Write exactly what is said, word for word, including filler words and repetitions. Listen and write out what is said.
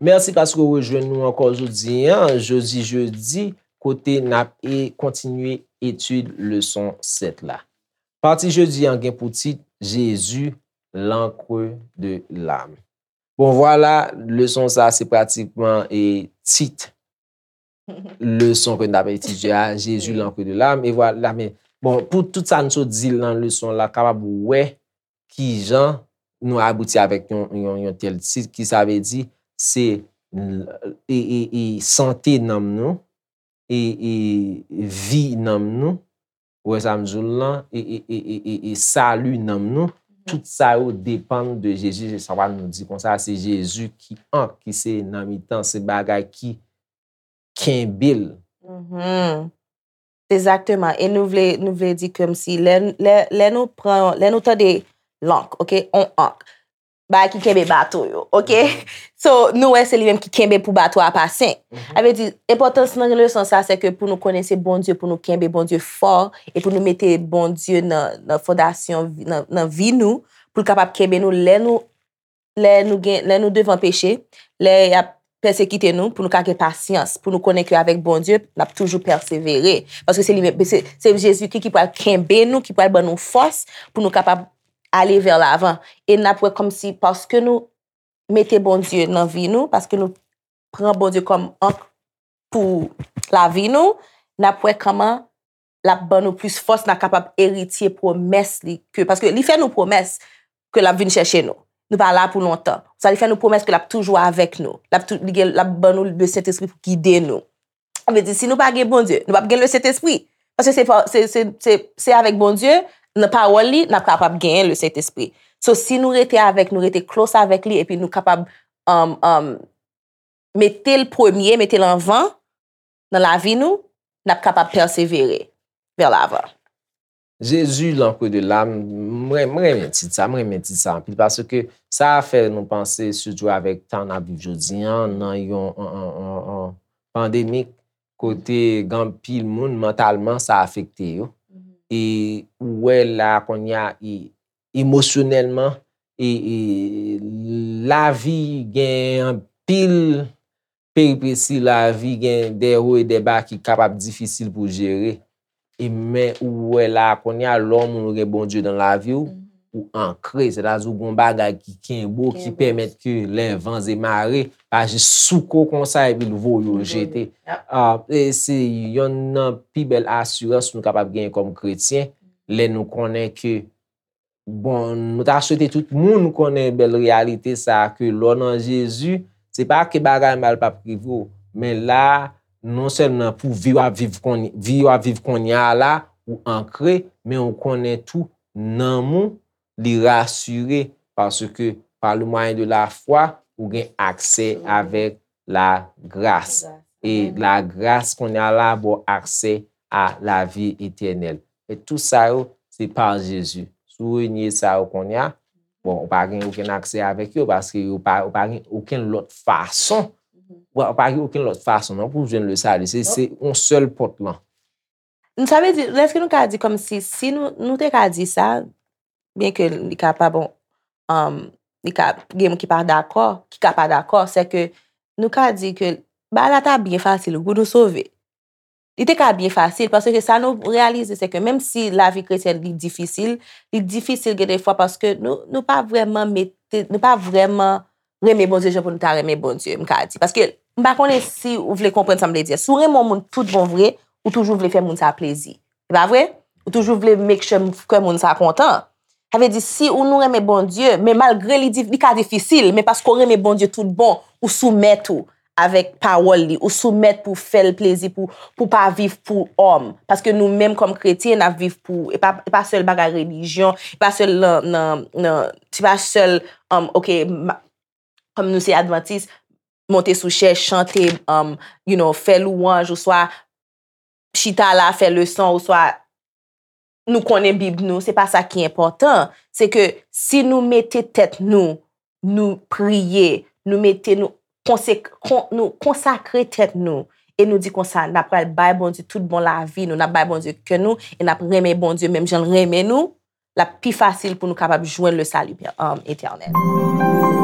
Mèsi paske w rejwenn nou ankò jodi a, jodi jedi, kote n ap e kontinye etid leson sèt la. Pati jodi an gen pou tit Jezi, l'encre de l'âme. Bon, vwala, leson sa se pratikman e tit leson ke n ap etidye a, Jezi, l'encre de l'âme. E vwala, men, bon, pou tout sa n sot di nan leson la, kapab wè kijan nou abouti avèk yon, yon, yon tèl tit, ki sa vle di, se e, e, e sante nanm nou, e, e vi nanm nou, ou wè sa m di w lan, e, e, e, e, e, e sali nanm nou, tout sa yo depann de Jezi. Se sa nou di konsa, se Jezi ki ank, ki se nan mitan, se bagay ki kenbe l. Mhm. Egzakteman. E nou vle, nou vle di kòmsi lè, lè, lè nou pran, lè nou tande lank, ok, on ank, bagay ki kenbe bato yo, ok? So, nou wè se li menm ki kenbe pou bato a pase. Sa vle di, enpòtans nan leson sa, se ke pou nou konnen se Bondye, pou nou kenbe Bondye fò, e pou nou mete Bondye nan, nan fondasyon, vi- nan, nan vi nou, pou l kapab kenbe nou lè nou, lè nou gen, lè nou devan peche, lè y ap pèsekite nou, pou nou ka gen pasyans, pou nou konnen ke avèk Bondye, n ap toujou pèsevere. Paske se li menm, se, se Jezikri ki pral kenbe nou, ki pral ban nou fòs pou nou kapab ale vè lavan. E n ap wè kòmsi paske nou mete Bondye nan vi nou, paske nou pran Bondye kòm ank pou lavi nou, n ap wè kòman l ap ban nou plis fòs, n ap kapab eritye pwomès li. Ke, paske li fè nou pwomès ke l ap vin chèche nou. Nou pa la pou lontan. Sa li fè nou pwomès ke l ap toujou avèk nou. L ap, tou, li gen, l ap ban nou Lesentespri pou gide nou. Sa vle di, si nou pa gen Bondye, nou p ap gen Lesentespri. Paske se, pa- se, se, se, se avèk Bondye, nan pawòl li, n ap kapab genyen Lesentespri. So, si nou rete avèk, nou rete close avèk li, epi nou kapab um, um, mete l premye, mete l anvan nan lavi nou, n ap kapab pèsevere vè lavan. Jezi, l'encre de l'âme, mwen, mwen renmen tit sa, mwen renmen tit sa anpil, paske sa fè nou panse, sitou avèk tan n ap viv jodi an, nan yon an, an, an, an pandemik, kote gen anpil moun, mantalman, sa afekte yo. E ou wè la, kounye a, e, emosyonèlman, e, e lavi gen anpil peripesi, lavi gen de wo e de ba ki kapab difisil pou jere. E men ou wè la kounye a, lè yon moun ou gen Bondye nan lavi w, ou ankre, sètadi ou gen yon bagay ki kenbe w, ki pèmèt ke lè van e mare pa jis souke w konsa epi l voye w jete. Ah, e se yonn nan pi bèl asirans nou kapab genyen kòm kretyen, lè nou konnen ke Bon, nou ta swete tout moun konnen bèl reyalite sa a, ke lè w nan Jezi, se pa ke bagay mal p ap rive w, men la, non sèlman pou vi w ap viv kounye, vi w ap viv kounye a la, ou ankre, men ou konnen tou, nanm ou, li rasire, paske pa le mwayen de la fwa, ou gen aksè avèk lagras. E lagras kounye a la ba w aksè a lavi etènèl. E tou sa yo, se pa Jezi. Si w renye sa yo kounye a, bon, ou pa gen okenn aksè avèk yo, paske yo pa, ou pa gen okenn lòt fason. Ou pa, ou pa gen okenn lòt fason, non, pou w jwenn le sali. Se, se yon sèl pòt lan. Sa vle di, èske nou ka di kòmsi, si nou, nou te ka di sa, byen ke li ka pa bon, um, li ka gen moun ki pa dakò, ki ka pa dakò, se ke nou ka di ke bagay la ta byen fasil pou nou sove. Li te ka byen fasil, paske sa nou reyalize, se ke menm si lavi kretyèn li difisil, li difisil gen de fwa paske nou, nou pa vrèman mete, nou pa vrèman renmen Bondye jan pou nou ta renmen Bondye, m ka di. Paske m pa konnen si ou vle konprann sa m vle di. Si w renmen yon moun tout bon vre, ou toujou vle fè moun sa plezi. Se pa vre? Ou toujou vle make sure kè moun sa kontan. Sa vle di, si ou nou renmen Bondye, men malgre li, di- li ka difisil, men paske w renmen Bondye tout bon, ou soumèt ou avèk pawòl li, ou soumèt pou fè l plezi, pou, pou pa viv pou òm. Paske nou menm kòm kretyen, n ap viv pou, e pa, e pa sèl bagay relijyon, e pa sèl nan, nan, nan, se pa sèl, um, ok, ma- kòm nou se advantis, monte sou chèz, chante, um, you know, fè lwanj, oswa chita la, fè leson, oswa nou konnen Bib nou, se pa sa ki enpòtan. Se ke si nou mete tèt nou, nou priye, nou mete nou, konsek- kon- nou konsakre tèt nou, e nou di konsa, n ap pral bay Bondye tout bon lavi nou, n ap bay Bondye kè nou, e n ap renmen Bondye menm jan l renmen nou, l ap pi fasil pou nou kapab jwenn le salut um, éternel.